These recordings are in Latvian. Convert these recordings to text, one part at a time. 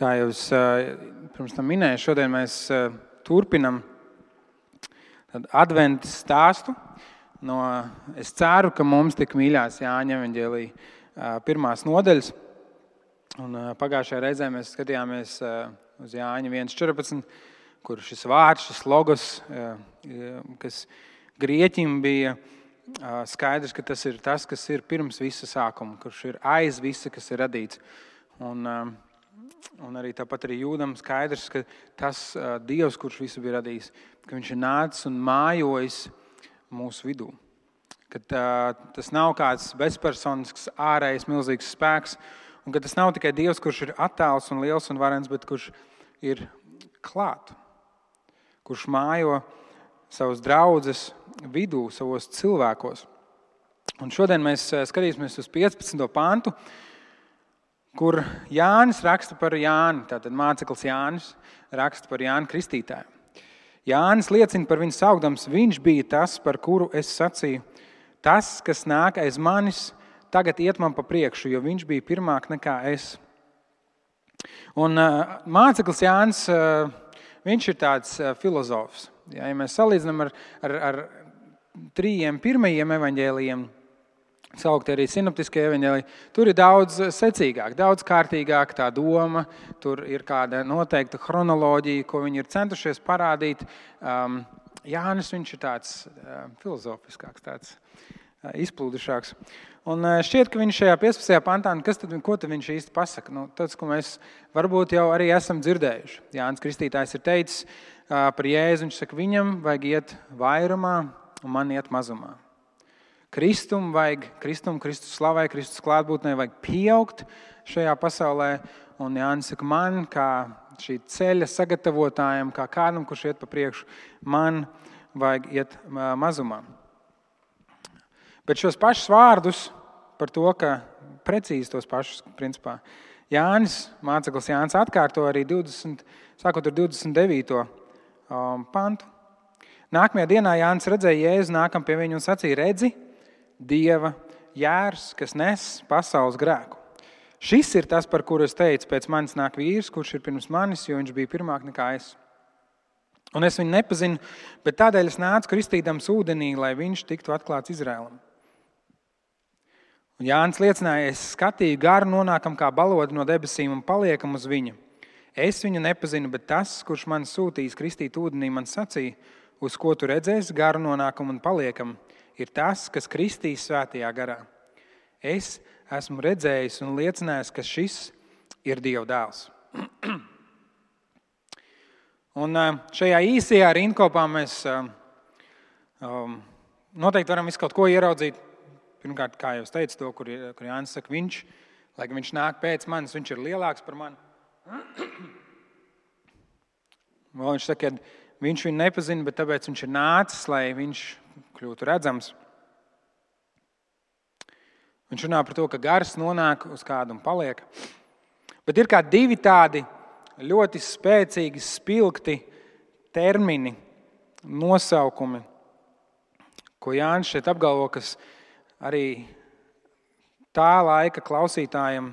Kā jau es pirms tam minēju, šodien mēs turpinam adventa stāstu. Es ceru, ka mums tik mīļās Jāņa evaņģēlija pirmās nodaļas. Un pagājušajā reizē mēs skatījāmies uz Jāņa 1.14, kur šis vārds, šis logos, kas grieķim bija skaidrs, ka tas ir tas, kas ir pirms visa sākuma, kurš ir aiz visa, kas ir radīts. Un arī tāpat arī jūdam skaidrs, ka tas Dievs, kurš visu bija radījis, ka viņš ir nācis un mājojis mūsu vidū. Ka tas nav kāds bezpersonisks, ārējs, milzīgs spēks, un ka tas nav tikai Dievs, kurš ir attāls un liels un varens, bet kurš ir klāt, kurš mājo savus draudzes vidū, savos cilvēkos. Un šodien mēs skatīsimies uz 15. pantu, kur Jānis raksta par Jāni, tātad māceklis Jānis raksta par Jāni Kristītāju. Jānis liecina par viņu saukdams, viņš bija tas, par kuru es sacīju, tas, kas nāk aiz manis, tagad iet man pa priekšu, jo viņš bija pirmāk nekā es. Un māceklis Jānis, viņš ir tāds filozofs. Ja mēs salīdzinām ar trījiem pirmajiem evaņģēlijiem, saukti arī sinoptiskie evaņģēliji, tur ir daudz secīgāk, daudz kārtīgāk tā doma, tur ir kāda noteikta chronoloģija, ko viņi ir centušies parādīt. Jānis, viņš ir tāds filozofiskāks, tāds izplūdušāks. Un šķiet, ka viņš šajā 15. pantā, ko tad viņš īsti pasaka? Tas, ko mēs varbūt jau arī esam dzirdējuši. Jānis Kristītājs ir teicis par Jēzu, viņš saka, viņam vajag iet vairumā un man iet mazumā. Kristus slavai, Kristus klātbūtnei vajag pieaugt šajā pasaulē. Un Jānis saka, man kā šī ceļa sagatavotājiem, kā kādam, kurš iet pa priekšu, man vajag iet mazumā. Bet šos pašus vārdus par to, ka precīzi tos pašus, principā, māceklis Jānis atkārto arī sākot ar 29. pantu. Nākamajā dienā Jānis redzēja Jēzu nākam pie viņu un sacīja, redzi, Dieva jērs, kas nes pasaules grēku. Šis ir tas, par kuru es teicu, pēc manis nāk vīrs, kurš ir pirms manis, jo viņš bija pirmāk nekā es. Un es viņu nepazinu, bet tādēļ es nācu kristīdams ūdenī, lai viņš tiktu atklāts Izraēlam. Un Jānis liecināja, es skatīju garu nonākam kā balodi no debesīm un paliekam uz viņu. Es viņu nepazinu, bet tas, kurš man sūtījis kristīt ūdenī, man sacīja, uz ko tu redzēsi garu nonākam un paliekam, ir tas, kas kristīs svētajā garā. Es esmu redzējis un liecinājis, ka šis ir Dieva dēls. Un šajā īsajā rindkopā mēs noteikti varam visu kaut ko ieraudzīt. Pirmkārt, kā jau es teicu to, kur Jānis saka, lai viņš nāk pēc manis, viņš ir lielāks par mani. Vēl viņš saka, ka viņš viņu nepazina, bet tāpēc viņš ir nācis, lai viņš kļūtu redzams. Viņš runā par to, ka gars nonāk uz kādu un paliek. Bet ir kā divi tādi ļoti spēcīgi, spilgti termini, nosaukumi, ko Jānis šeit apgalvo, kas arī tā laika klausītājiem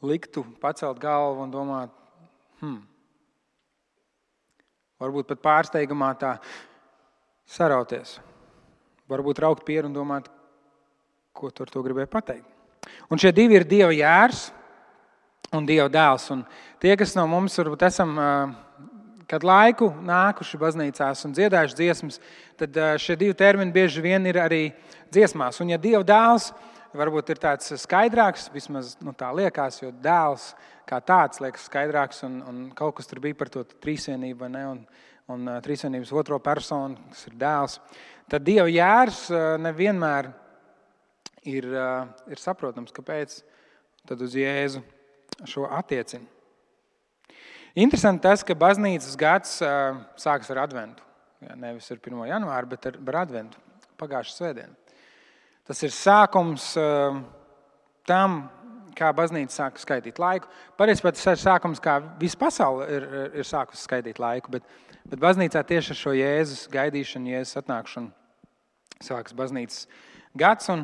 liktu pacelt galvu un domāt, varbūt pat pārsteigumā tā sarauties. Varbūt raukt pieru un domāt, ko tu ar to gribēji pateikt. Un šie divi ir Dieva jērs un Dieva dēls. Un tie, kas no mums varbūt esam kādu laiku nākuši baznīcās un dziedājuši dziesmas, tad šie divi termini bieži vien ir arī dziesmās. Un ja Dieva dēls varbūt ir tāds skaidrāks, vismaz tā liekas, jo dēls kā tāds liekas skaidrāks un kaut kas tur bija par to trīsvienību, vai ne? Un trīsvienības otro personu, kas ir dēls. Tad Dieva jērs nevienmēr ir saprotams, kāpēc tad uz Jēzu šo attiecina. Interesanti tas, ka baznīcas gads sākas ar adventu. Nevis ar 1. janvāru, bet ar adventu, pagājušu svētdienu. Tas ir sākums tam, kā baznīca sāka skaitīt laiku. Patiesībā tas ir sākums, kā visa pasaule ir sākusi skaitīt laiku, bet baznīcā tieši ar šo Jēzus gaidīšanu, Jēzus atnākšanu sākas baznīcas gads. Un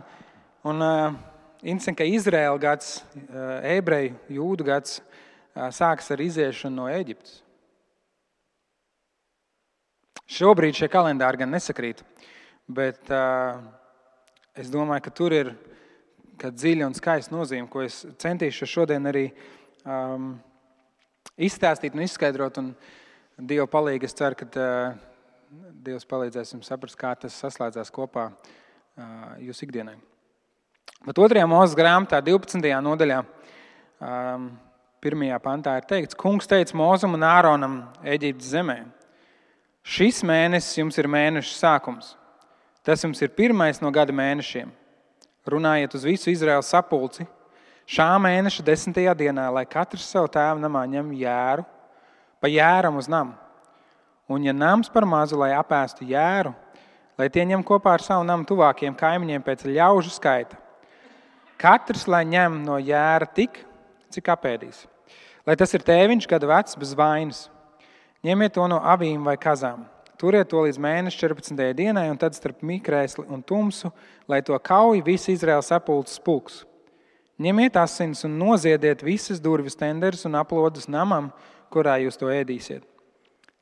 interesanti, ka Izraēla gads, ebreju, jūdu gads sākas ar iziešanu no Ēģiptes. Šobrīd šie kalendāri gan nesakrīt, bet es domāju, ka tur ir dziļa un skaista nozīme, ko es centīšu šodien arī izstāstīt un izskaidrot. Un Dieva palīga, es ceru, ka Dievs palīdzēs jums saprast, kā tas saslēdzās kopā jūsu ikdienai. Bet 2. Mūzes grāmatā, 12. nodaļā, 1. pantā ir teikts: Kungs teica Mūzum un Āronam Ēģiptes zemē: Šis mēnesis jums ir mēneša sākums. Tas jums ir pirmais no gada mēnešiem. Runājiet uz visu Izraēlas sapulci šā mēneša 10. dienā, lai katrs savu tēvu namā ņem jēru, pa jēram uz namu. Un ja nams par mazu, lai apēstu jēru, lai tie ņem kopā ar savu namu tuvākiem kaimiņiem pēc ļaužu skaita. Katrs, lai ņem no jēra tik, cik apēdīs. Lai tas ir tēviņš gada vecs bez vainas. Ņemiet to no avīm vai kazām. Turiet to līdz mēneša 14. dienai, un tad starp mikrēsli un tumsu, lai to kauj visi Izraēlas sapulces pulks. Ņemiet asins un noziediet visas durvis tenderus un aplodus namam, kurā jūs to ēdīsiet.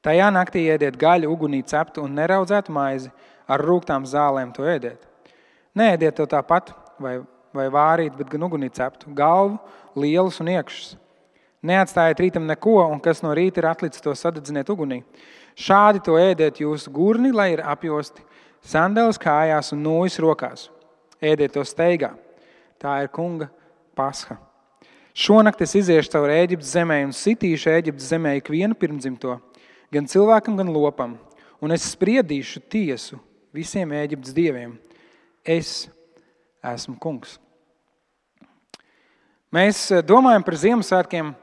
Tajā naktī ēdiet gaļu, ugunī ceptu un neraudzētu maizi, ar rūgtām zālēm to ēdiet. Neēdiet to tāpat vai vārīt, bet gan ugunī ceptu, galvu, lielus un iekšus. Neatstājiet rītam neko, un kas no rīta ir atlicis, to sadedziniet ugunī. Šādi to ēdiet jūsu gurni, lai ir apjosti, sandeles kājās un nūjas rokās. Ēdiet to steigā. Tā ir kunga pasha. Šonakt es iziešu caur Ēģiptes zemē un sitīšu Ēģiptes zemē ikvienu pirmdzimto, gan cilvēkam, gan lopam, un es spriedīšu tiesu visiem Ēģiptes dieviem. Es esmu kungs. Mēs domājam par Ziemassvētkiem.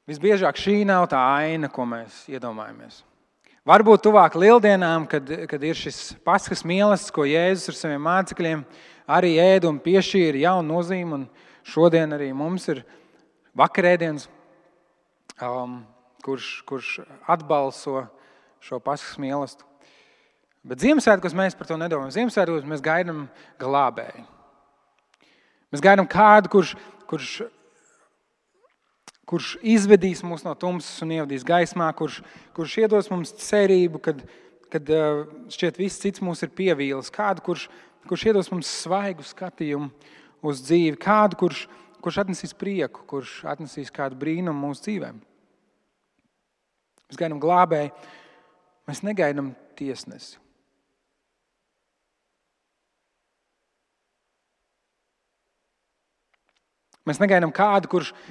Visbiežāk šī nav tā aina, ko mēs iedomājamies. Varbūt tuvāk Lieldienām, kad ir šis Paskas mīlestības, ko Jēzus ar saviem mācekļiem arī ēd un piešķīra jaunu nozīmi. Un šodien arī mums ir vakarēdienas, kurš atbalso šo Paskas mīlestību. Bet Ziemassvētkos mēs par to nedomājam. Ziemassvētkos mēs gaidām glābēju. Mēs gaidām kādu, kurš izvedīs mūs no tumsas un ievadīs gaismā, kurš iedos mums cerību, kad šķiet viss cits mūs ir pievīlis. Kādu, kurš iedos mums svaigu skatījumu uz dzīvi. Kādu, kurš atnesīs prieku, kurš atnesīs kādu brīnumu mūsu dzīvēm. Mēs gaidām glābēju, mēs negaidām tiesnesi. Mēs negaidām kādu,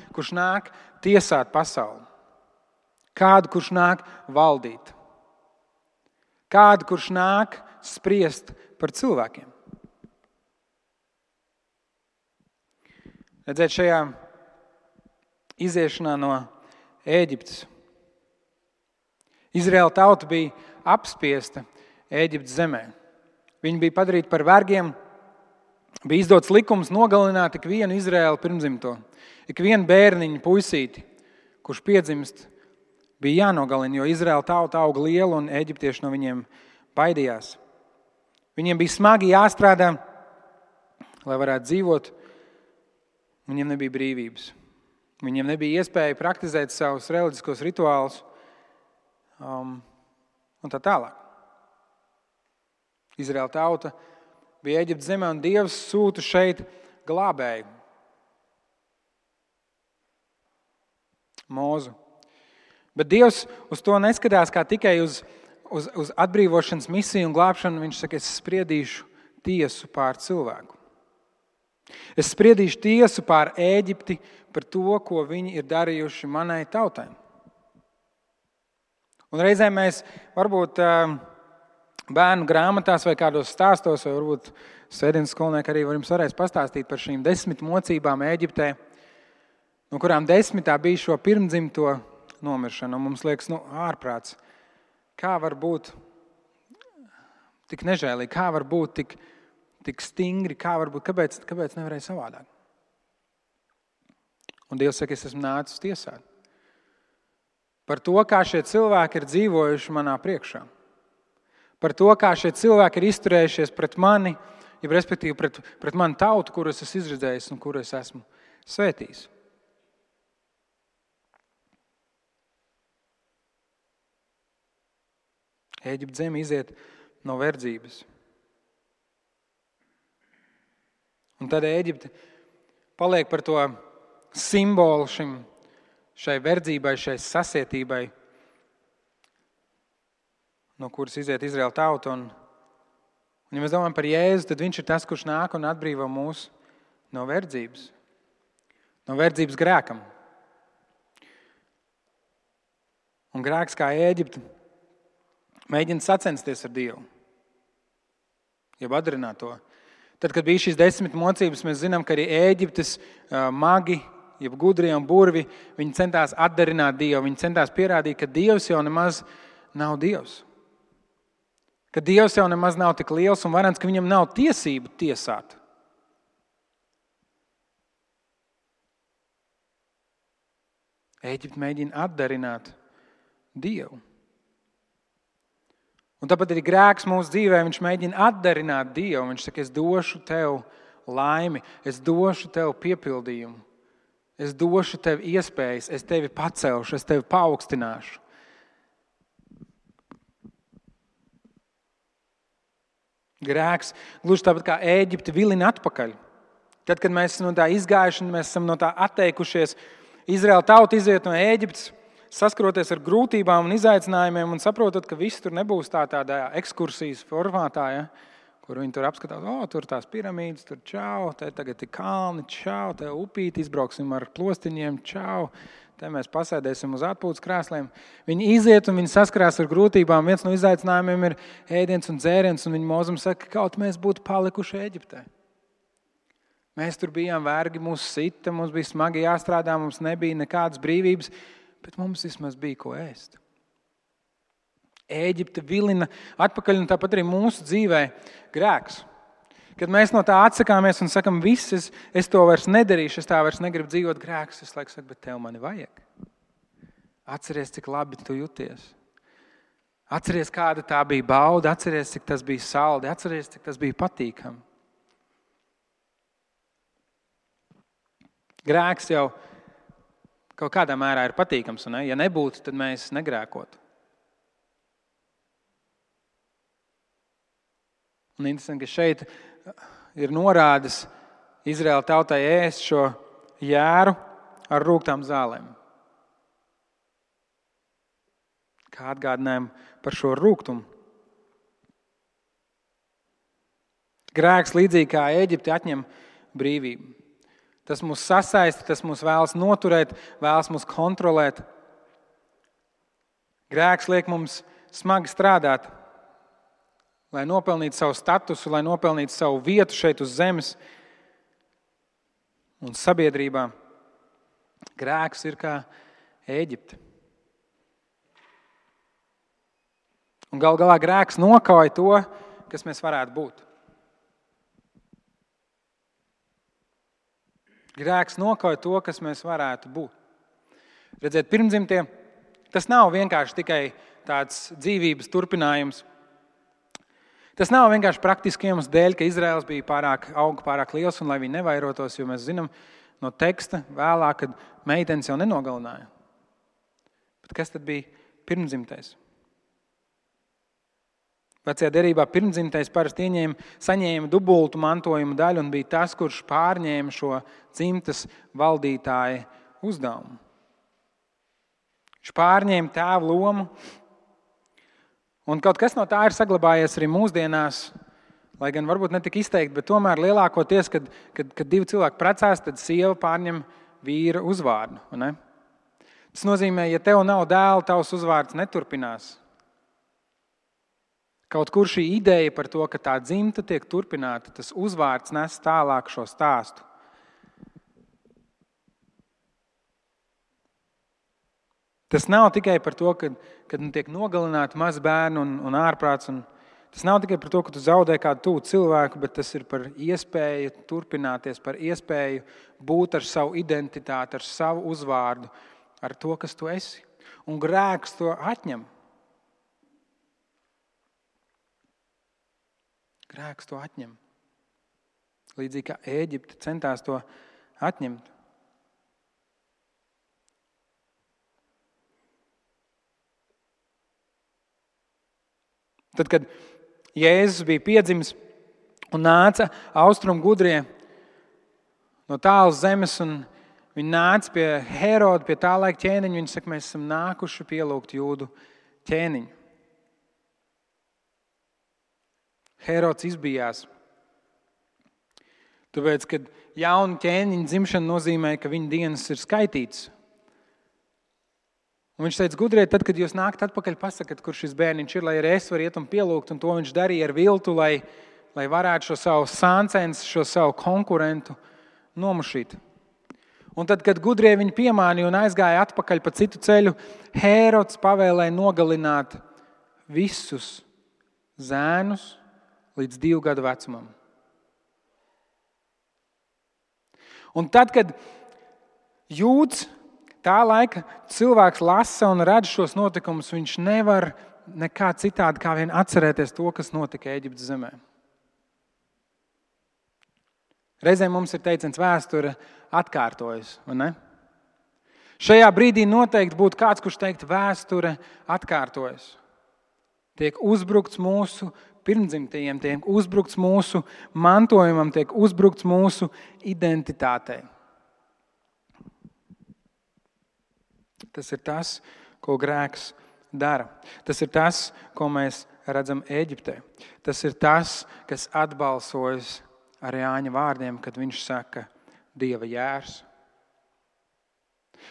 kurš nāk tiesāt pasauli. Kādu, kurš nāk valdīt. Kādu, kurš nāk spriest par cilvēkiem. Redzēt, šajā iziešanā no Ēģiptes Izraēla tauta bija apspiesta Ēģiptes zemē. Viņi bija padarīti par vergiem. Bija izdots likums nogalināt ikvienu Izraēlu pirmdzimto. Ikvienu bērniņu puisīti, kurš piedzimst, bija jānogalina, jo Izraēla tauta auga liela un eģiptieši no viņiem baidījās. Viņiem bija smagi jāstrādā, lai varētu dzīvot. Viņiem nebija brīvības. Viņiem nebija iespēja praktizēt savus reliģiskos rituālus un tā tālāk. Izraēla tauta bija Ēģiptes zemē, un Dievs sūta šeit glābēju. Mūzu. Bet Dievs uz to neskatās kā tikai uz atbrīvošanas misiju un glābšanu. Viņš saka, es spriedīšu tiesu pār cilvēku. Es spriedīšu tiesu pār Ēģipti par to, ko viņi ir darījuši manai tautai. Un reizēm mēs varbūt bērnu grāmatās vai kādos stāstos, vai varbūt svētdienas skolnieki arī jums varēs pastāstīt par šīm 10 mocībām Ēģiptē, no kurām 10 bija šo pirmdzimto nomiršana. Un mums liekas, ārprāts, kā var būt tik nežēlīgi, kā var būt tik stingri, kā var būt, kāpēc nevarēja savādāk? Un Dievs saka, es esmu nācis tiesāt par to, kā šie cilvēki ir dzīvojuši manā priekšā. Par to, kā šie cilvēki ir izturējušies pret mani, respektīvi pret manu tautu, kuru es esmu izredzējis un kuru es esmu svētījis. Ēģiptes zeme iziet no verdzības. Un tad Ēģipte paliek par to simbolu šai verdzībai, šai sasietībai, no kuras iziet Izraēla tauta. Un ja mēs domājam par Jēzu, tad viņš ir tas, kurš nāk un atbrīvo mūs no verdzības. No verdzības grēkam. Un grēks kā Ēģipte mēģina sacensties ar Dievu. Jeb atdarināt to. Tad, kad bija šīs 10 mocības, mēs zinām, ka arī Ēģiptes magi, jeb gudrie un burvi, viņi centās atdarināt Dievu. Viņi centās pierādīt, ka Dievs jau nemaz nav Dievs. Ka Dievs jau nemaz nav tik liels un varens, ka viņam nav tiesību tiesāt. Ēģipte mēģina atdarināt Dievu. Un tāpat arī grēks mūsu dzīvē, viņš mēģina atdarināt Dievu. Viņš saka, es došu tev laimi, es došu tev piepildījumu, es došu tev iespējas, es tevi pacelšu, es tevi paaugstināšu. Grēks, gluži tāpat kā Ēģipte, vilina atpakaļ. Tad, kad mēs esam no tā izgājuši, mēs esam no tā atteikušies, Izraēla tauta iziet no Ēģiptes, saskroties ar grūtībām un izaicinājumiem un saprotot, ka viss tur nebūs tādā ekskursijas formātā, ja, kur viņi tur apskatās, tur tās piramīdas, tur čau, te tagad ir kalni, čau, te upīti, izbrauksim ar plostiņiem, čau, te mēs pasēdēsim uz atpūtas krēsliem. Viņi iziet un viņi saskarās ar grūtībām. Viens no izaicinājumiem ir ēdiens un dzēriens, un viņi mūzum saka, ka kaut mēs būtu palikuši Ēģiptē. Mēs tur bijām vergi, mūs sita, mums bija smagi jāstrādā, mums nebija nekādas brīvības, bet mums vismaz bija ko ēst. Ēģipte vilina atpakaļ, un tāpat arī mūsu dzīvē grēks. Kad mēs no tā atsakāmies un sakam, viss, es to vairs nedarīšu, es tā vairs negribu dzīvot, grēks, es laiku saku, bet tev mani vajag. Atceries, cik labi tu jūties. Atceries, kāda tā bija bauda, atceries, cik tas bija saldi, atceries, cik tas bija patīkami. Grēks jau kaut kādā mērā ir patīkams, un ja nebūtu, tad mēs negrēkotu. Un interesanti, ka šeit ir norādes Izraēla tautai ēst šo jēru ar rūgtām zālēm. Kā atgādinājumu par šo rūgtumu. Grēks līdzīgi kā Ēģipte atņem brīvību. Tas mūs sasaista, tas mūs vēlas noturēt, vēlas mūs kontrolēt. Grēks liek mums smagi strādāt, lai nopelnītu savu statusu, lai nopelnītu savu vietu šeit uz zemes un sabiedrībā. Grēks ir kā Ēģipte. Un gal galā grēks nokauj to, kas mēs varētu būt. Grēks nokauj to, kas mēs varētu būt. Redziet, pirmdzimtie, tas nav vienkārši tikai tāds dzīvības turpinājums. Tas nav vienkārši praktiski iemesls dēļ, ka Izraels bija pārāk liels un lai viņi nevairotos, jo mēs zinām no teksta vēlāk, kad meitenes jau nenogalināja. Bet kas tad bija pirmdzimtais? Vecajā derībā pirmdzimtais parasti saņēma dubultu mantojuma daļu un bija tas, kurš pārņēma šo dzimtas valdītāja uzdevumu. Viņš pārņēma tēva lomu, un kaut kas no tā ir saglabājies arī mūsdienās, lai gan varbūt ne tik izteikti, bet tomēr lielākoties, kad divi cilvēki precās, tad sieva pārņem vīra uzvārdu. Ne? Tas nozīmē, ja tev nav dēla, tavs uzvārds neturpinās. Kaut kur šī ideja par to, ka tā dzimta tiek turpināta, tas uzvārds nes tālāk šo stāstu. Tas nav tikai par to, kad tiek nogalināti mazi bērni un ārprāts. Tas nav tikai par to, ka tu zaudē kādu tuvu cilvēku, bet tas ir par iespēju turpināties, par iespēju būt ar savu identitāti, ar savu uzvārdu, ar to, kas tu esi. Un grēks to atņem. Grēks to atņem. Līdzīgi kā Ēģipte centās to atņemt. Tad, kad Jēzus bija piedzimis un nāca austrumu gudrie no tālas zemes, un viņi nāca pie Heroda, pie tā laika ķēniņa, viņi saka, mēs esam nākuši pielūgt Jūdu ķēniņu. Herods izbijās. Tāpēc, kad jauna ķēniņa dzimšana nozīmē, ka viņa dienas ir skaitītas. Un viņš teica, gudrie, tad, kad jūs nākat atpakaļ, pasakat, kur šis bērniņš ir, lai arī es varu iet un pielūgt, un to viņš darīja ar viltu, lai varētu šo savu sāncens, šo savu konkurentu nomušīt. Un tad, kad gudrie viņu piemānīja un aizgāja atpakaļ pa citu ceļu, Hērods pavēlēja nogalināt visus zēnus līdz 2 gadu vecumam. Un tad, kad Jūds, tā laika cilvēks lasa un redz šos notikumus, viņš nevar nekā citādi kā vien atcerēties to, kas notika Ēģiptes zemē. Reizēm mums ir teiciens, vēsture atkārtojas, vai ne? Šajā brīdī noteikti būtu kāds, kurš teikt, vēsture atkārtojas. Tiek uzbrukts mūsu pirmdzimtajiem, tiek uzbrukts mūsu mantojumam, tiek uzbrukts mūsu identitātei. Tas ir tas, ko grēks dara. Tas ir tas, ko mēs redzam Ēģiptē. Tas ir tas, kas atbalsojas ar Jāņa vārdiem, kad viņš saka Dieva jērs.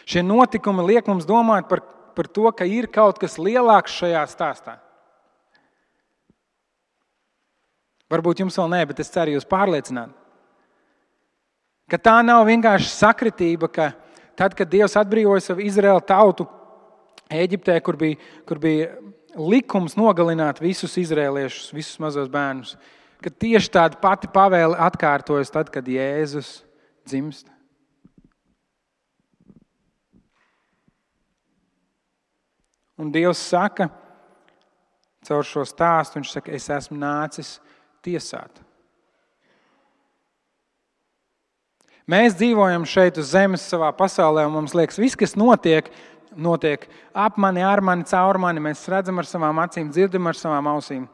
Šie notikumi liek mums domāt par to, ka ir kaut kas lielāks šajā stāstā. Varbūt jums vēl nē, bet es ceru jūs pārliecināt. Ka tā nav vienkārši sakritība, ka tad, kad Dievs atbrīvoja savu Izraēlu tautu Ēģiptē, kur bija likums nogalināt visus izraēliešus, visus mazos bērnus, ka tieši tāda pati pavēle atkārtojas tad, kad Jēzus dzimst. Un Dievs saka, caur šo stāstu, viņš saka, es esmu nācis tiesāt. Mēs dzīvojam šeit uz zemes savā pasaulē, un mums liekas, viss, kas notiek ap mani, ar mani, caur mani. Mēs redzam ar savām acīm, dzirdam ar savām ausīm.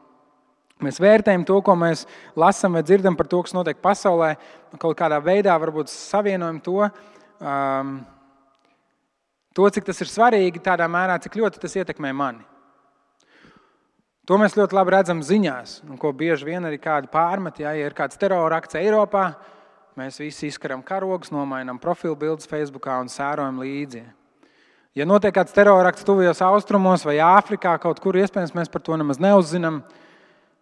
Mēs vērtējam to, ko mēs lasam vai dzirdam par to, kas notiek pasaulē, kaut kādā veidā varbūt savienojam to, cik tas ir svarīgi, tādā mērā, cik ļoti tas ietekmē mani. To mēs ļoti labi redzam ziņās, un ko bieži vien arī kādi pārmet, ja ir kāds terora akts Eiropā, mēs visi izkaram karogus, nomainām profilbildes Facebookā un sērojam līdzi. Ja notiek kāds terora akts tuvajos austrumos vai Āfrikā, kaut kur iespējams mēs par to nemaz neuzzinām,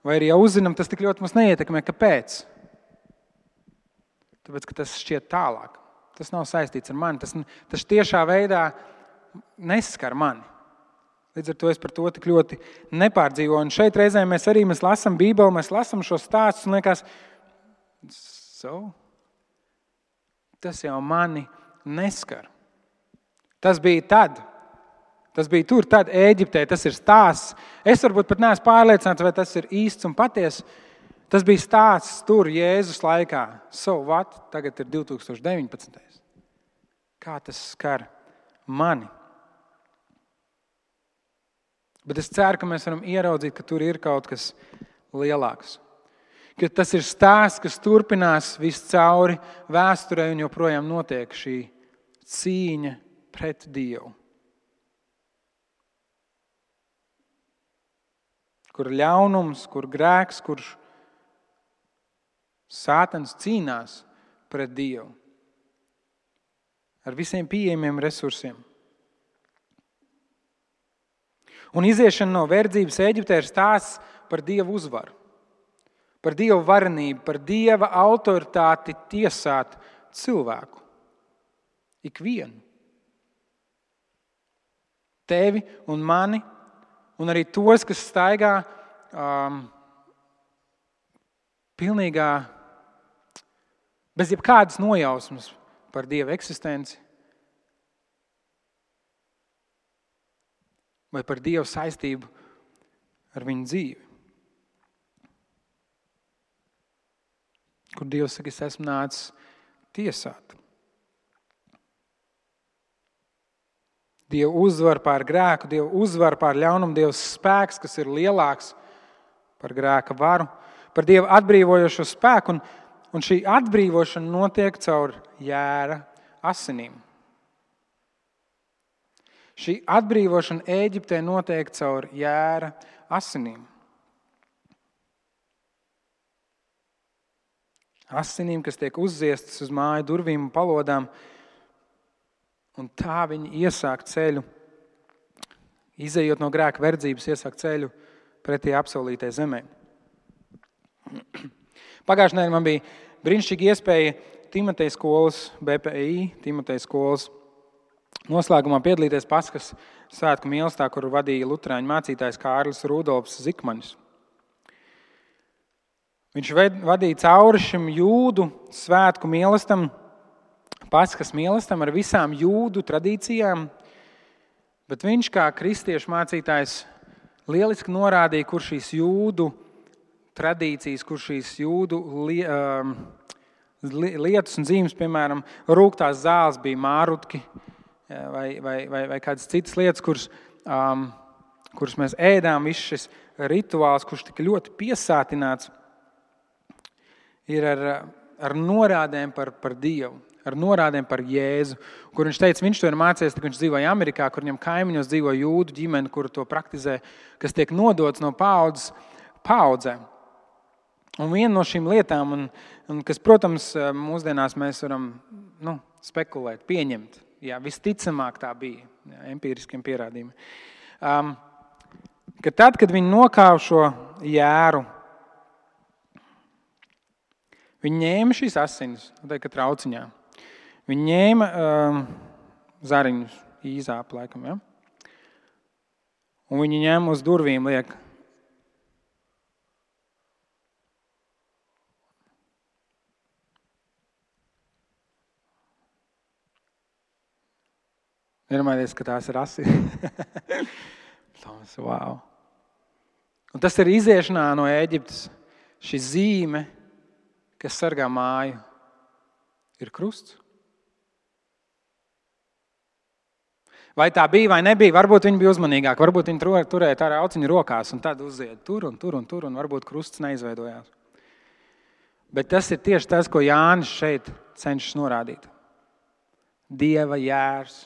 vai arī jau uzzinām, tas tik ļoti mums neietekmē. Kāpēc? Tāpēc, ka tas šķiet tālāk. Tas nav saistīts ar mani. Tas tiešā veidā neskar mani. Līdz ar to es par to tik ļoti nepārdzīvoju. Un šeit reizēm mēs lasām Bībeli, mēs lasām šo stāstus un liekas, tas jau mani neskar. Tas bija tad. Tas bija tur, tad Ēģiptē, tas ir stāsts. Es varbūt pat neesmu pārliecināts, vai tas ir īsts un patiess. Tas bija stāsts tur Jēzus laikā. So what? Tagad ir 2019. Kā tas skar mani? Bet es ceru, ka mēs varam ieraudzīt, ka tur ir kaut kas lielāks. Ka tas ir stāsts, kas turpinās viscauri vēsturē un joprojām notiek šī cīņa pret Dievu. Kur ļaunums, kur grēks, kur Sātans cīnās pret Dievu ar visiem pieejamiem resursiem. Un iziešana no verdzības Ēģiptē ir stāsts par Dieva uzvaru, par Dieva varenību, par Dieva autoritāti tiesāt cilvēku. Ikvienu. Tevi un mani. Un arī tos, kas staigā pilnīgā, bez jebkādas nojausmas par Dieva eksistenci vai par Dieva saistību ar viņu dzīvi. Kur Dievs saka, es esmu nācis tiesāt. Dieva uzvar pār grēku, Dieva uzvar pār ļaunumu, Dieva spēks, kas ir lielāks par grēka varu, par Dieva atbrīvojošo spēku, un šī atbrīvošana notiek caur jēra asinīm. Šī atbrīvošana Ēģiptē notiek caur jēra asinīm. Asinīm, kas tiek uzziestas uz māju durvīm un palodām, un tā viņi iesāk ceļu, izejot no grēka verdzības, iesāk ceļu pretī apsolītai zemē. Pagājušajā nedēļā man bija brīnišķīga iespēja Timoteja skolas, BPI, Timoteja skolas noslēgumā piedalīties Paskas svētku mīlestībā, kuru vadīja luterāņu mācītājs Kārlis Rudolfs Zikmanis. Viņš vadīja cauri šim jūdu svētku mīlestam, Paskas mīlestam ar visām jūdu tradīcijām, bet viņš kā kristiešu mācītājs lieliski norādīja, kur šīs jūdu tradīcijas, kur šīs jūdu lietas un zīmes, piemēram, rūgtās zāles bija mārutki vai kādas citas lietas, kuras mēs ēdām, viss šis rituāls, kurš tika ļoti piesātināts, ir ar norādēm par Dievu, ar norādēm par Jēzu, kur viņš teica, viņš to ir mācījies, kad viņš dzīvoja Amerikā, kur viņam kaimiņos dzīvo jūdu ģimene, kuru to praktizē, kas tiek nodots no paaudzes paaudzē. Un viena no šīm lietām, un kas, protams, mūsdienās mēs varam spekulēt, pieņemt, visticamāk tā bija, empiriskiem pierādījumiem, ka tad, kad viņi nokāva šo jēru, viņi ņēma šīs asinis, ka trauciņā. Viņi ņēma zariņus, īzāpu laikam, ja? Un viņi ņēma uz durvīm liek. Nedomājieties, ka tās ir asinis. Wow. Un tas ir iziešanā no Ēģiptes. Šī zīme, kas sargā māju, ir krusts. Vai tā bija vai nebija, varbūt viņi bija uzmanīgāki, varbūt viņi turēja tā rauciņu rokās un tad uziet tur, un varbūt krusts neizveidojās. Bet tas ir tieši tas, ko Jānis šeit cenšas norādīt. Dieva jērs.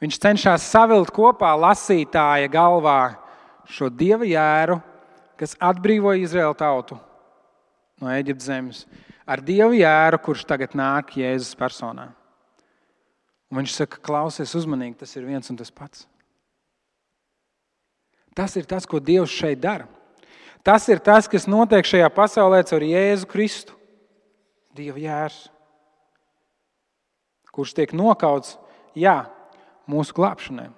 Viņš cenšas savilkt kopā lasītāja galvā šo Dieva jēru, kas atbrīvoja Izraēlu tautu no Ēģiptes zemes, ar Dievu jēru, kurš tagad nāk Jēzus personā. Un viņš saka, klausies uzmanīgi, tas ir viens un tas pats. Tas ir tas, ko Dievs šeit dara. Tas ir tas, kas notiek šajā pasaulē caur Jēzu Kristu. Dieva jērs, kurš tiek nokauts, mūsu glābšanai.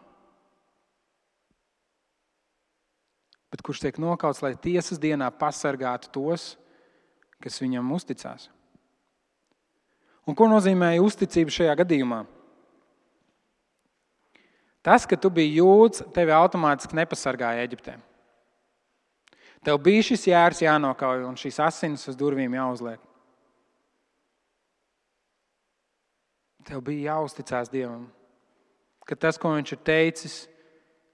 Bet kurš tiek nokauts, lai tiesas dienā pasargātu tos, kas viņam uzticās. Un ko nozīmēja uzticība šajā gadījumā? Tas, ka tu biji jūds, tevi automātiski nepasargāja Ēģiptē. Tev bija šis jērs jānokauj un šīs asinis uz durvīm jāuzliek. Tev bija jāuzticās Dievam, ka tas, ko viņš ir teicis,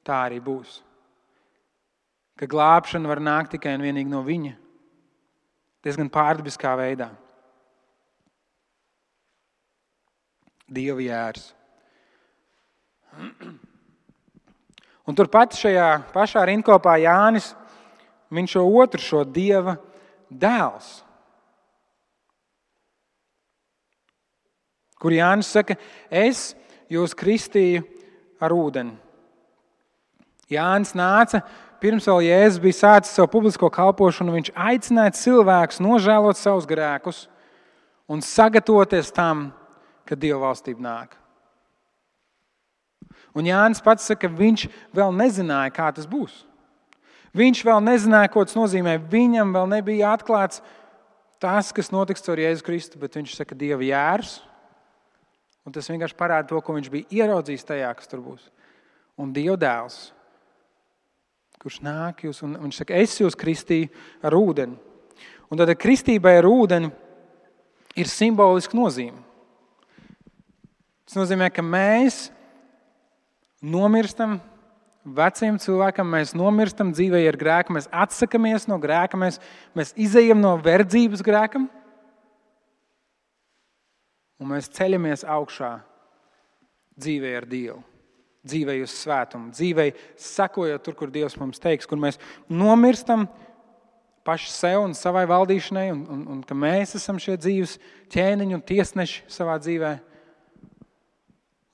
tā arī būs. Ka glābšana var nākt tikai un vienīgi no viņa. Diezgan pārdabiskā veidā. Dieva jērs. Un turpat šajā pašā rindkopā Jānis, viņš šo Dieva dēls. Kur Jānis saka, es jūs kristīju ar ūdeni. Jānis nāca, pirms vēl Jēzus bija sācis savu publisko kalpošanu, viņš aicināja cilvēkus nožēlot savus grēkus un sagatavoties tam, kad Dieva valstība nāk. Un Jānis pats saka, ka viņš vēl nezināja, kā tas būs. Viņš vēl nezināja, ko tas nozīmē. Viņam vēl nebija atklāts tas, kas notiks caur Jēzu Kristu, bet viņš saka, Dieva jērs. Un tas vienkārši parāda to, ko viņš bija ieraudzījis tajā, kas tur būs. Un Dieva dēls, kurš nāk jūs, un viņš saka, es jūs kristīju ar ūdeni. Un tad kristībai ar ūdeni ir simboliska nozīme. Tas nozīmē, ka mēs nomirstam veciem cilvēkam, mēs nomirstam dzīvē ar grēku, mēs atsakamies no grēka, mēs izejam no verdzības grēkam un mēs ceļamies augšā dzīvē ar Dievu, dzīvē uz svētumu, dzīvē sekojot tur, kur Dievs mums teiks, kur mēs nomirstam paši sev un savai valdīšanai un ka mēs esam šie dzīves ķēniņi un tiesneši savā dzīvē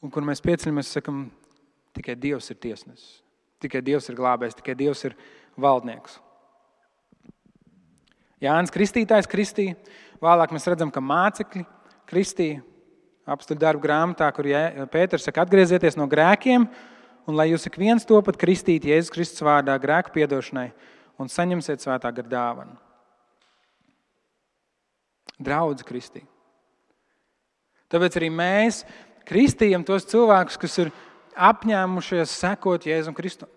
un kur mēs pieceļamies un sakam, tikai Dievs ir tiesnesis, tikai Dievs ir glābējs, tikai Dievs ir valdnieks. Jānis Kristītājs kristīja, vēlāk mēs redzam, ka mācekļi kristīja apstuļu darbu grāmatā, kur Pēters saka, atgriezieties no grēkiem un lai jūs ik viens topat kristīt Jēzus Kristus vārdā grēku piedošanai un saņemsiet svētā gara dāvanu. Draudze kristīja. Tāpēc arī mēs kristījam tos cilvēkus, kas ir apņēmušies sekot Jēzum Kristum,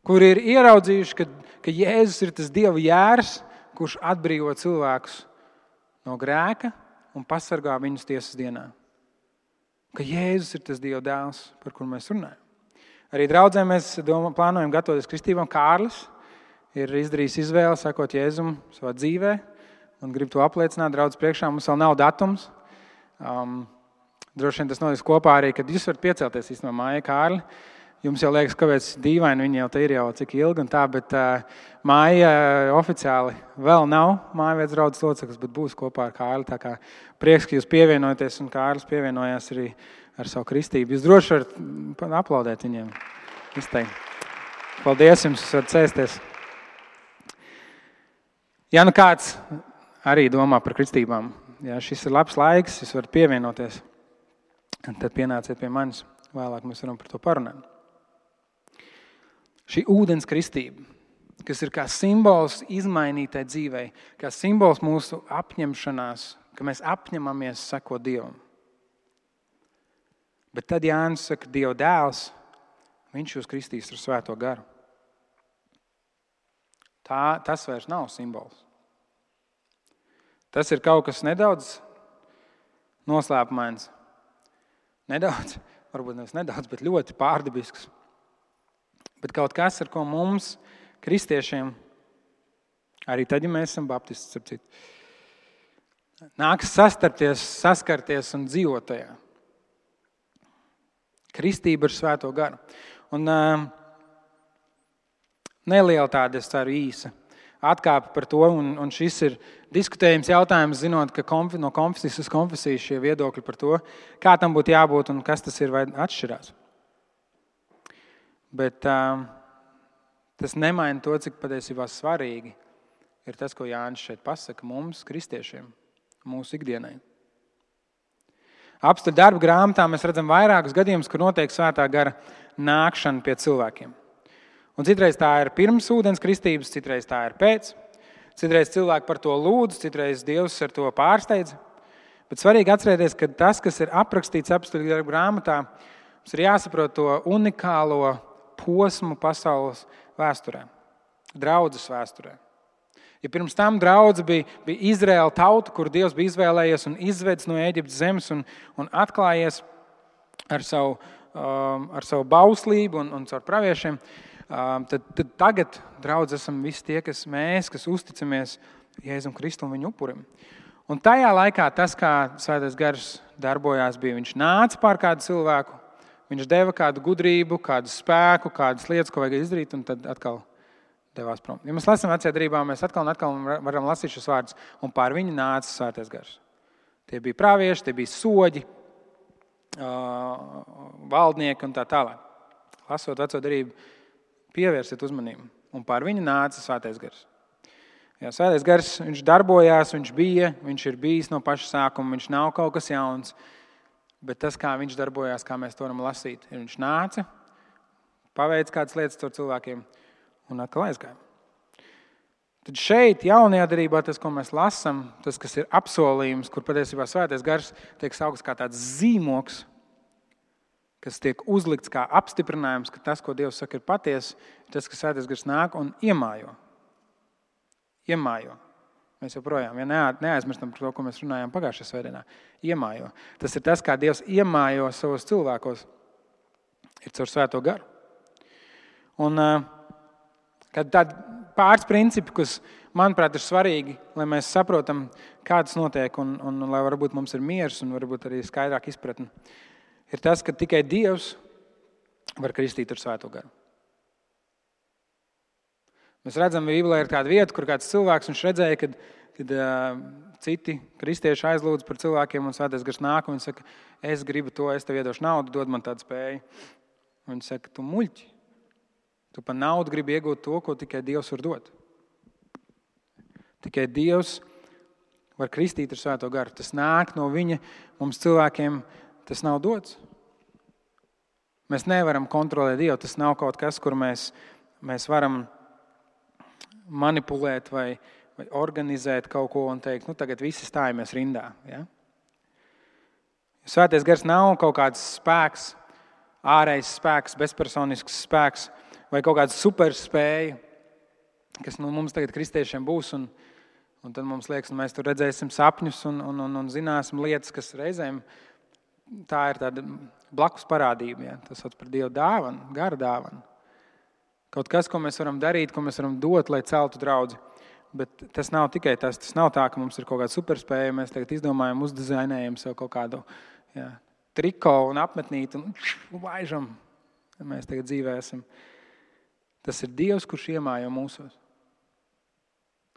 kuri ir ieraudzījuši, ka Jēzus ir tas Dieva jērs, kurš atbrīvo cilvēkus no grēka un pasargā viņus tiesas dienā. Ka Jēzus ir tas Dieva dēls, par kuru mēs runājam. Arī draudzē mēs plānojam gatavoties kristībām. Kārlis ir izdarījis izvēli sekot Jēzum savā dzīvē un grib to apliecināt draudz priekšā. Mums vēl nav datums. Droši vien tas notiks kopā arī, kad jūs varat piecelties īstenībā māja Kārli. Jums jau liekas, kāpēc dīvaini, viņi jau te ir jau cik ilgi un tā, bet māja oficiāli vēl nav mājavietas draudzes loceklis, bet būs kopā ar Kārli. Tā kā prieks, ka jūs pievienojaties un Kārlis pievienojās arī ar savu kristību. Jūs droši varat aplaudēt viņiem. Izteikt. Paldies jums, jūs varat sēsties. Ja nu kāds arī domā par kristībām, ja šis ir labs laiks, jūs varat pievienoties, tad pienāciet pie manis. Vēlāk mēs varam par to parunāt. Šī ūdens kristība, kas ir kā simbols izmainītai dzīvei, kā simbols mūsu apņemšanās, ka mēs apņemamies sekot Dievam. Bet tad Jānis saka, Dieva dēls, viņš jūs kristīs ar svēto garu. Tas vairs nav simbols. Tas ir kaut kas nedaudz noslēpumains. Nedaudz, varbūt nevis nedaudz, bet ļoti pārdabisks. Bet kaut kas, ar ko mums, kristiešiem, arī tad, ja mēs esam baptisti, ap citu, nāks saskarties un dzīvot tajā. Kristība ar svēto garu. Un neliela tāda, es ceru, īsa atkāpe par to, un šis ir diskutējums jautājums, zinot, ka no konfesijas uz konfesiju šie viedokļi par to, kā tam būtu jābūt un kas tas ir vai atšķirās. Bet tas nemaina to, cik patiesībā svarīgi ir tas, ko Jānis šeit pasaka mums, kristiešiem, mūsu ikdienai. Apstuļu darbu grāmatā mēs redzam vairākus gadījumus, kur notiek svētā gara nākšana pie cilvēkiem. Un citreiz tā ir pirms ūdens kristības, citreiz tā ir pēc. Citreiz cilvēki par to lūdz, citreiz Dievs ar to pārsteidz. Bet svarīgi atcerēties, ka tas, kas ir aprakstīts apstuļu darbu grāmatā, mums ir jāsaprot to unikālo posmu pasaules vēsturē, draudzes vēsturē. Ja pirms tam draudze bija Izraēla tauta, kur Dievs bija izvēlējies un izvedis no Ēģiptes zemes un atklājies ar savu bauslību un caur praviešiem, tad tagad draudze esam visi tie, kas uzticamies Jēzum Kristum viņu upurim. Un tajā laikā tas, kā Svētais Gars darbojās, bija, viņš nāca pār kādu cilvēku, viņš deva kādu gudrību, kādu spēku, kādas lietas, ko vajag izdarīt, un tad atkal devās prom. Ja mēs lasām Vecajā derībā, mēs atkal un atkal varam lasīt šos vārdus, un pār viņu nāca Svētais Gars. Tie bija pravieši, tie bija soģi, valdnieki un tā tālāk. Lasot Veco derību, pievērsiet uzmanību, un pār viņu nāca Svētais Gars. Jā, Svētais Gars, viņš darbojās, viņš ir bijis no paša sākuma, viņš nav kaut kas jauns, bet tas, kā viņš darbojās, kā mēs to varam lasīt, ir viņš nāca, paveic kādas lietas ar cilvēkiem un atkal aizgāja. Tad šeit, jaunajā derībā, tas, ko mēs lasām, tas, kas ir apsolījums, kur patiesībā Svētais Gars tiek saukts kā tāds zīmoks, kas tiek uzlikts kā apstiprinājums, ka tas, ko Dievs saka, ir patiesa, tas, ka Svētais Gars nāk un iemājo. Mēs joprojām, neaizmirstam par to, ko mēs runājām pagājušajā svētdienā. Iemājo. Tas ir tas, kā Dievs iemājo savos cilvēkos, ir caur Svēto Garu. Un kad tādi pāris principi, kas, manuprāt, ir svarīgi, lai mēs saprotam, kā tas notiek, un lai varbūt mums ir miers un varbūt arī skaidrāk izpratni, ir tas, ka tikai Dievs var kristīt ar Svēto garu. Mēs redzam, Bībelē ir tāda vieta, kur kāds cilvēks, viņš redzēja, kad citi kristieši aizlūdz par cilvēkiem, un Svētais gars nāk, un viņš saka, es gribu to, es tev iedošu naudu, dod man tādu spēju. Un viņš saka, tu muļķi. Tu par naudu gribi iegūt to, ko tikai Dievs var dot. Tikai Dievs var kristīt ar Svēto garu. Tas nāk no viņa, mums cilvēkiem tas nav dots. Mēs nevaram kontrolēt Dievu. Tas nav kaut kas, kur mēs varam manipulēt vai organizēt kaut ko un teikt, tagad visi stājamies rindā. Ja? Svētais gars nav kaut kāds spēks, ārējs spēks, bezpersonisks spēks vai kaut kāda superspēja, kas mums tagad kristiešiem būs, un tad mums liekas, mēs tur redzēsim sapņus un zināsim lietas, kas reizēm tā ir tāda blakus parādība. Ja? Tas sauc par Dieva dāvanu, gara dāvanu. Kaut kas, ko mēs varam darīt, ko mēs varam dot, lai celtu draudzi. Bet tas nav tikai tas. Tas nav tā, ka mums ir kaut kāda superspēja, mēs tagad izdomājam, uzdizainējam sev kaut kādu triko un apmetnīti un laižam. Mēs tagad dzīvē esam. Tas ir Dievs, kurš iemājo mūsos.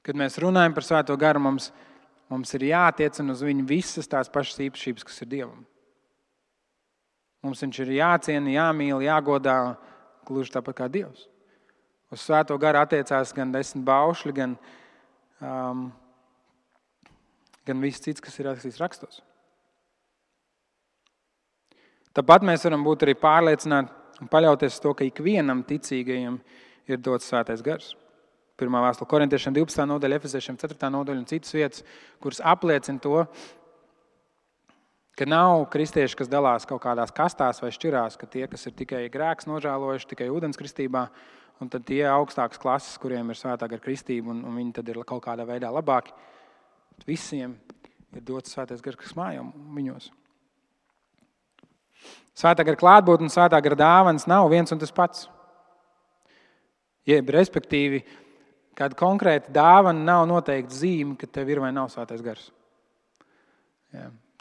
Kad mēs runājam par Svēto garu, mums ir jātiecina uz viņu visas tās pašas īpašības, kas ir Dievam. Mums viņš ir jāciena, jāmīl, jāgodā, gluži tāpat kā Dievs. Uz Svēto garu attiecās gan 10 baušļi, gan viss cits, kas ir rakstīts rakstos. Tāpat mēs varam būt arī pārliecināti un paļauties uz to, ka ikvienam ticīgajam ir dots Svētais gars. 1. vēstule Korintiešiem 12. nodaļa, Efeziešiem 4. nodaļa un citas vietas, kuras apliecina to, ka nav kristieši, kas dalās kaut kādās kastās vai šķirās, ka tie, kas ir tikai grēks nožēlojuši, tikai ūdens kristībā, un tad tie augstākas klases, kuriem ir Svētā gara kristība, un viņi tad ir kaut kādā veidā labāki. Visiem ir dots Svētais gars, kas mājo viņos. Svētā gara klātbūtne un Svētā gara dāvanas nav viens un tas pats. Respektīvi, kāda konkrēta dāvana nav noteikti zīme, ka tev ir vai nav Svētais gars.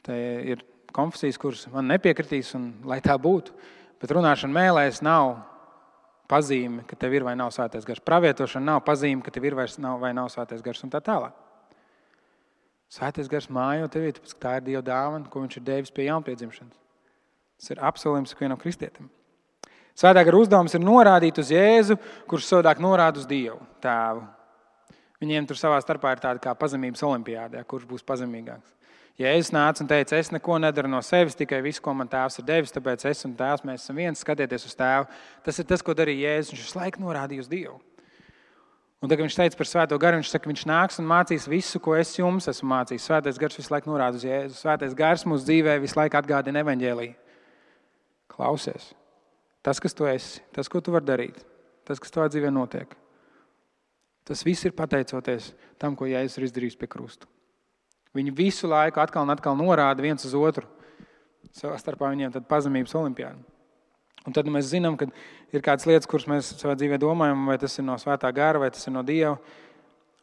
Te ir konfesijas, kuras man nepiekritīs, un lai tā būtu, bet runāšana mēlēs nav pazīme, ka tev ir vai nav Svētais gars. Pravietošana nav pazīme, ka tev ir vai nav Svētais gars, un tā tālāk. Svētais gars mājo tevī, tāpēc, ka tā ir Dieva dāvana, ko viņš ir devis pie jaunpiedzimšanas. Tas ir apsolījums ikvienam kristietim. Svētā gara uzdevums ir norādīt uz Jēzu, kurš savādāk norāda uz Dievu, Tēvu. Viņiem tur savā starpā ir tāda kā pazemības olimpiāde, kurš būs pazemīgāks. Jēzus nāca un teica, es neko nedaru no sevis, tikai visu, ko man Tēvs ir devis, tāpēc es un Tēvs, mēs esam viens, skatieties uz Tēvu. Tas ir tas, ko darīja Jēzus, viņš visu laiku norādīja uz Dievu. Un tagad viņš teica par Svēto garu, viņš saka, viņš nāks un mācīs visu, ko es jums esmu mācījis. Svētais gars visu laiku norāda uz Jēzu. Svētais gars mūsu dzīvē visu laiku atgādina evaņģēliju. Klausies. Tas, kas tu esi, tas, ko tu vari darīt, tas, kas tavā dzīvē notiek, tas viss ir pateicoties tam, ko Jēzus ir izdarījis pie krusta. Viņi visu laiku atkal un atkal norāda viens uz otru. Savā starpā viņiem tad pazemības olimpiāda. Un tad mēs zinām, ka ir kādas lietas, kuras mēs savā dzīvē domājam, vai tas ir no Svētā gara, vai tas ir no Dieva.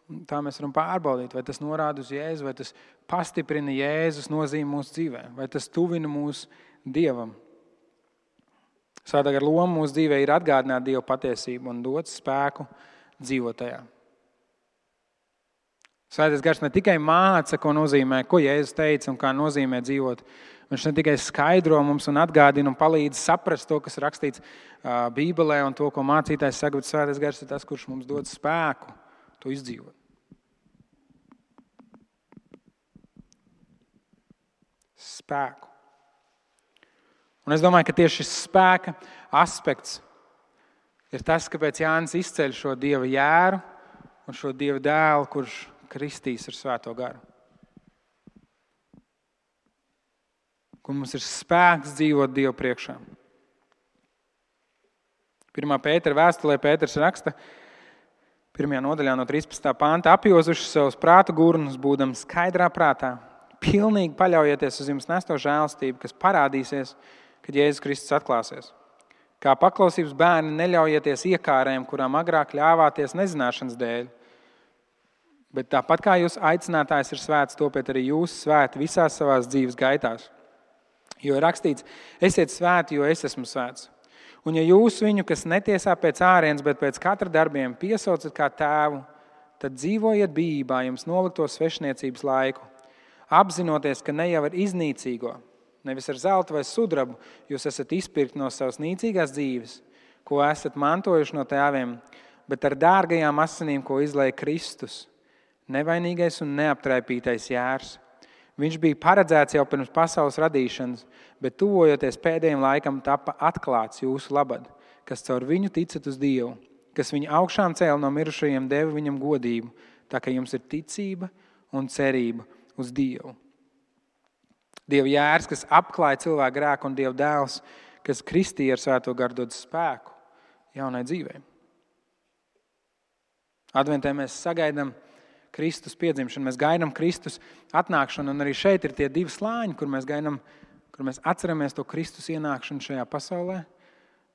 Un tā mēs varam pārbaudīt, vai tas norāda uz Jēzu, vai tas pastiprina Jēzus nozīmi mūsu dzīvē, vai tas tuvina mūs Dievam. Svētā gara loma mūsu dzīvē ir atgādināt Dieva patiesību un dot spēku dzīvot tajā. Svētais gars ne tikai māca, ko nozīmē, ko Jēzus teica un kā nozīmē dzīvot. Viņš ne tikai skaidro mums un atgādina un palīdz saprast to, kas rakstīts Bībelē un to, ko mācītājs saka, bet Svētais gars ir tas, kurš mums dod spēku to izdzīvot. Spēku. Un es domāju, ka tieši šis spēka aspekts ir tas, kāpēc Jānis izceļ šo Dieva jēru un šo Dieva dēlu, kurš kristīs ar Svēto garu. Kur mums ir spēks dzīvot Dievu priekšā. 1. Pētera vēstulē Pēters raksta 1. nodaļā no 13. panta, apjozuši savus prātu gurnus, būdam skaidrā prātā, pilnīgi paļaujieties uz jums nesto žēlastību, kas parādīsies, kad Jēzus Kristus atklāsies. Kā paklausības bērni neļaujieties iekārēm, kurām agrāk ļāvāties nezināšanas dēļ. Bet tāpat kā jūs aicinātājs ir svēts, topiet arī jūs svēti visās savās dzīves gaitās. Jo ir rakstīts, esiet svēti, jo es esmu svēts. Un ja jūs viņu, kas netiesā pēc ārienes, bet pēc katra darbiem piesaucat kā tēvu, tad dzīvojiet bijībā jums nolikto svešniecības laiku, apzinoties, ka ne jau ar iznīcīgo, nevis ar zeltu vai sudrabu, jūs esat izpirkti no savas nīcīgās dzīves, ko esat mantojuši no tēviem, bet ar dārgajām asinīm, ko izlēja Kristus, nevainīgais un neaptraipītais jērs. Viņš bija paredzēts jau pirms pasaules radīšanas, bet tuvojoties pēdējiem laikam tapa atklāts jūsu labad, kas caur viņu ticat uz Dievu, kas viņu augšām cēla no mirušajiem, deva viņam godību, tā ka jums ir ticība un cerība uz Dievu. Dieva jērs, kas apklāja cilvēku grēku, un Dieva dēls, kas kristīja ar svēto garu dod spēku jaunai dzīvei. Adventē mēs sagaidām Kristus piedzimšanu, mēs gaidām Kristus atnākšanu, un arī šeit ir tie divi slāņi, kur mēs atceramies to Kristus ienākšanu šajā pasaulē.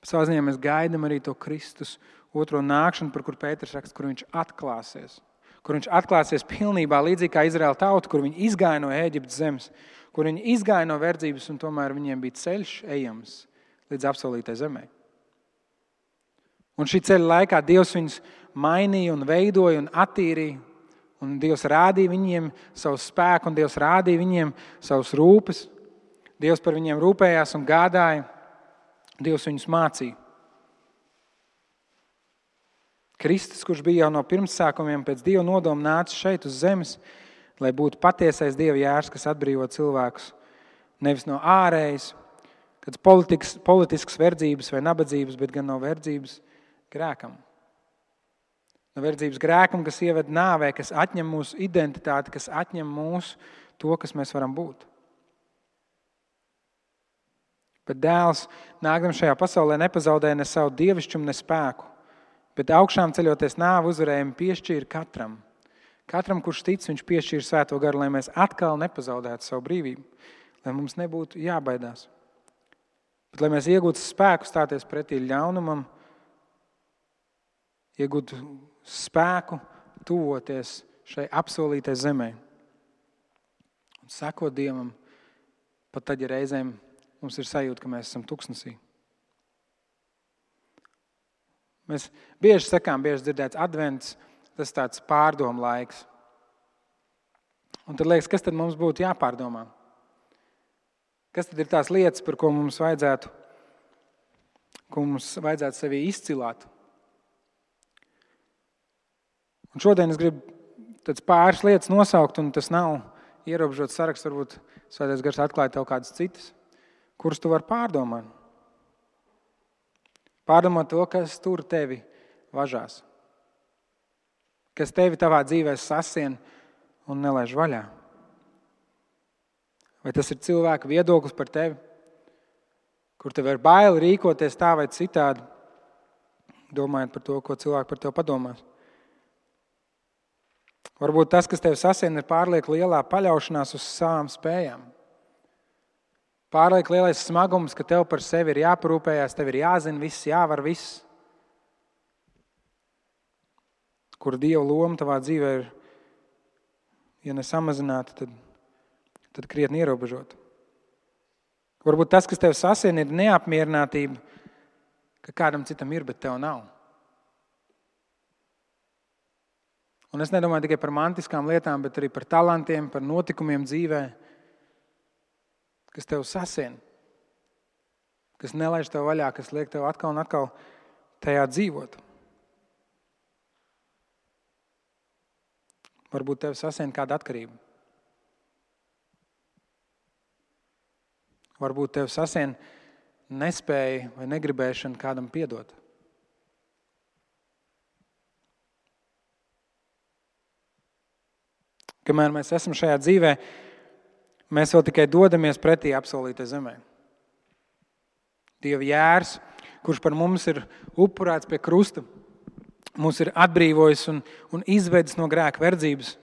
Savā ziņā mēs gaidām arī to Kristus otro nākšanu, par kur Pēters raksta, kur viņš atklāsies. Kur viņš atklāsies pilnībā līdzīgi kā Izraēla tauta, kur viņi izgāja no Ēģiptes zemes, kur viņi izgāja no verdzības, un tomēr viņiem bija ceļš ejams līdz apsolītai zemē. Un šī ceļa laikā Dievs viņus mainīja un veidoja un attīrīja, un Dievs rādīja viņiem savu spēku, un Dievs rādīja viņiem savus rūpes. Dievs par viņiem rūpējās un gādāja. Dievs viņus mācīja. Kristus, kurš bija jau no pirmsākumiem pēc Dieva nodoma nācis šeit uz zemes, lai būtu patiesais Dieva jērs, kas atbrīvo cilvēkus nevis no ārējas, kāds politisks verdzības vai nabadzības, bet gan no verdzības grēkam. No verdzības grēkam, kas ieved nāvē, kas atņem mūsu identitāti, kas atņem mūsu to, kas mēs varam būt. Bet dēls, nākdam šajā pasaulē, nepazaudēja ne savu dievišķumu, ne spēku, bet augšām ceļoties nāvu uzvarējumu piešķīra katram. Katram, kurš tic, viņš piešķīra svēto garu, lai mēs atkal nepazaudētu savu brīvību, lai mums nebūtu jābaidās. Bet lai mēs iegūtu spēku stāties pretī ļaunumam, iegūtu spēku tuvoties šai apsolītai zemē un sekot Dievam, pat tad, ja reizēm mums ir sajūta, ka mēs esam tuksnesī. Mēs bieži sakām, bieži dzirdēts advents, tas tāds pārdomu laiks. Un tad liekas, kas tad mums būtu jāpārdomā? Kas tad ir tās lietas, par ko mums vajadzētu sevi izcilāt? Un šodien es gribu tāds pāris lietas nosaukt, un tas nav ierobežots saraksts, varbūt Svētais Gars atklāja tev kādas citas, kuras tu vari pārdomāt. Pārdomāt to, kas tur tevi važās. Kas tevi tavā dzīvē sasien un nelaiž vaļā. Vai tas ir cilvēka viedoklis par tevi, kur tev ir baili rīkoties tā vai citādi, domājot par to, ko cilvēki par tevi padomās. Varbūt tas, kas tevi sasien, ir pārlieku lielā paļaušanās uz savām spējām. Pārlieku lielais smagums, ka tev par sevi ir jāparūpējās, tev ir jāzina viss, jāvar viss. Kur Dieva loma tavā dzīvē ir, ja nesamazināta, tad krietni ierobežota. Varbūt tas, kas tev sasien, ir neapmierinātība, ka kādam citam ir, bet tev nav. Un es nedomāju tikai par mantiskām lietām, bet arī par talantiem, par notikumiem dzīvē, kas tev sasien, kas nelaiž tev vaļā, kas liek tev atkal un atkal tajā dzīvot. Varbūt tev sasien kāda atkarība. Varbūt tev sasien nespēja vai negribēšana kādam piedot. Kamēr mēs esam šajā dzīvē, mēs vēl tikai dodamies pretī apsolītai zemē. Dieva jērs, kurš par mums ir upurēts pie krusta, mūs ir atbrīvojis un izvedis no grēka verdzības.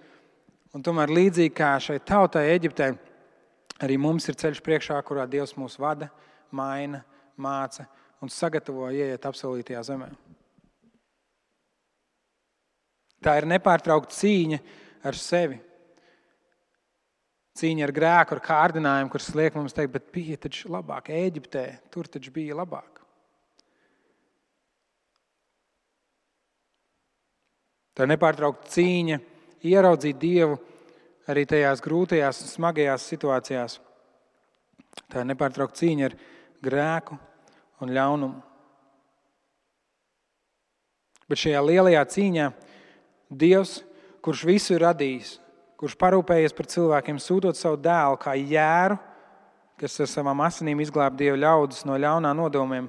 Un tomēr līdzīgi kā šai tautai Eģiptē, arī mums ir ceļš priekšā, kurā Dievs mūs vada, maina, māca un sagatavo ieiet apsolītajā zemē. Tā ir nepārtraukta cīņa ar sevi. Cīņa ar grēku, ar kārdinājumu, kurš liek mums teikt, bet bija taču labāk Ēģiptē, tur taču bija labāk. Tā ir nepārtraukta cīņa ieraudzīt Dievu arī tajās grūtajās un smagajās situācijās. Tā ir nepārtraukta cīņa ar grēku un ļaunumu. Bet šajā lielajā cīņā Dievs, kurš visu ir radījis, kurš parūpējies par cilvēkiem, sūtot savu dēlu kā jēru, kas ar savām asinīm izglāb Dieva ļaudis no ļaunā nodomiem,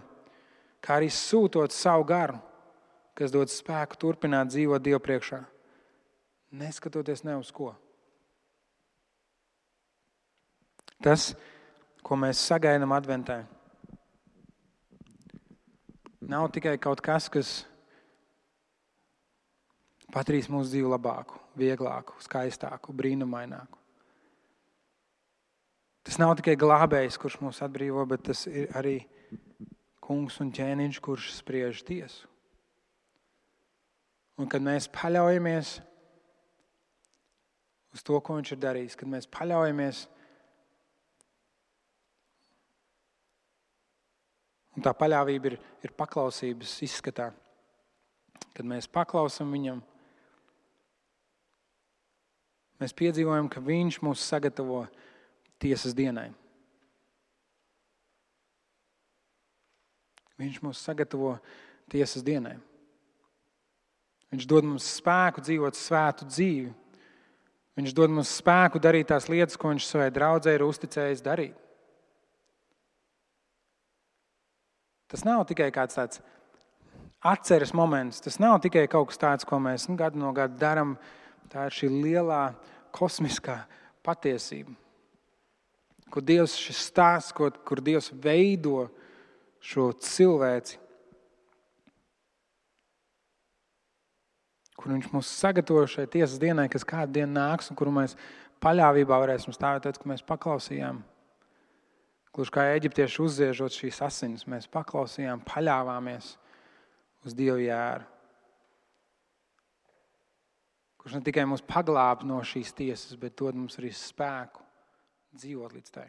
kā arī sūtot savu garu, kas dod spēku turpināt dzīvot Dievu priekšā, neskatoties ne uz ko. Tas, ko mēs sagaidām adventē, nav tikai kaut kas, kas padarīs mūsu dzīvi labāku, vieglāku, skaistāku, brīnumaināku. Tas nav tikai glābējs, kurš mūs atbrīvo, bet tas ir arī kungs un ķēniņš, kurš spriež tiesu. Un kad mēs paļaujamies uz to, ko viņš ir darījis, kad mēs paļaujamies, un tā paļāvība ir paklausības izskatā, kad mēs paklausam viņam, mēs piedzīvojam, ka viņš mūs sagatavo tiesas dienai. Viņš mūs sagatavo tiesas dienai. Viņš dod mums spēku dzīvot svētu dzīvi. Viņš dod mums spēku darīt tās lietas, ko viņš savai draudzei ir uzticējis darīt. Tas nav tikai kāds tāds atceres moments. Tas nav tikai kaut kas tāds, ko mēs gadu no gada daram. Tā ir šī lielā kosmiskā patiesība. Kur Dievs šis stāsts, kur Dievs veido šo cilvēci. Kur viņš mūs sagatavo šai tiesas dienai, kas kādu dienu nāks, un kuru mēs paļāvībā varēsim stāvēt, tad, kad mēs paklausījām. Gluži kā eģiptieši uzziežot šīs asinis, mēs paklausījām, paļāvāmies uz Dievu jēru. Kurš ne tikai mūs paglāb no šīs tiesas, bet dod mums arī spēku dzīvot līdz tai.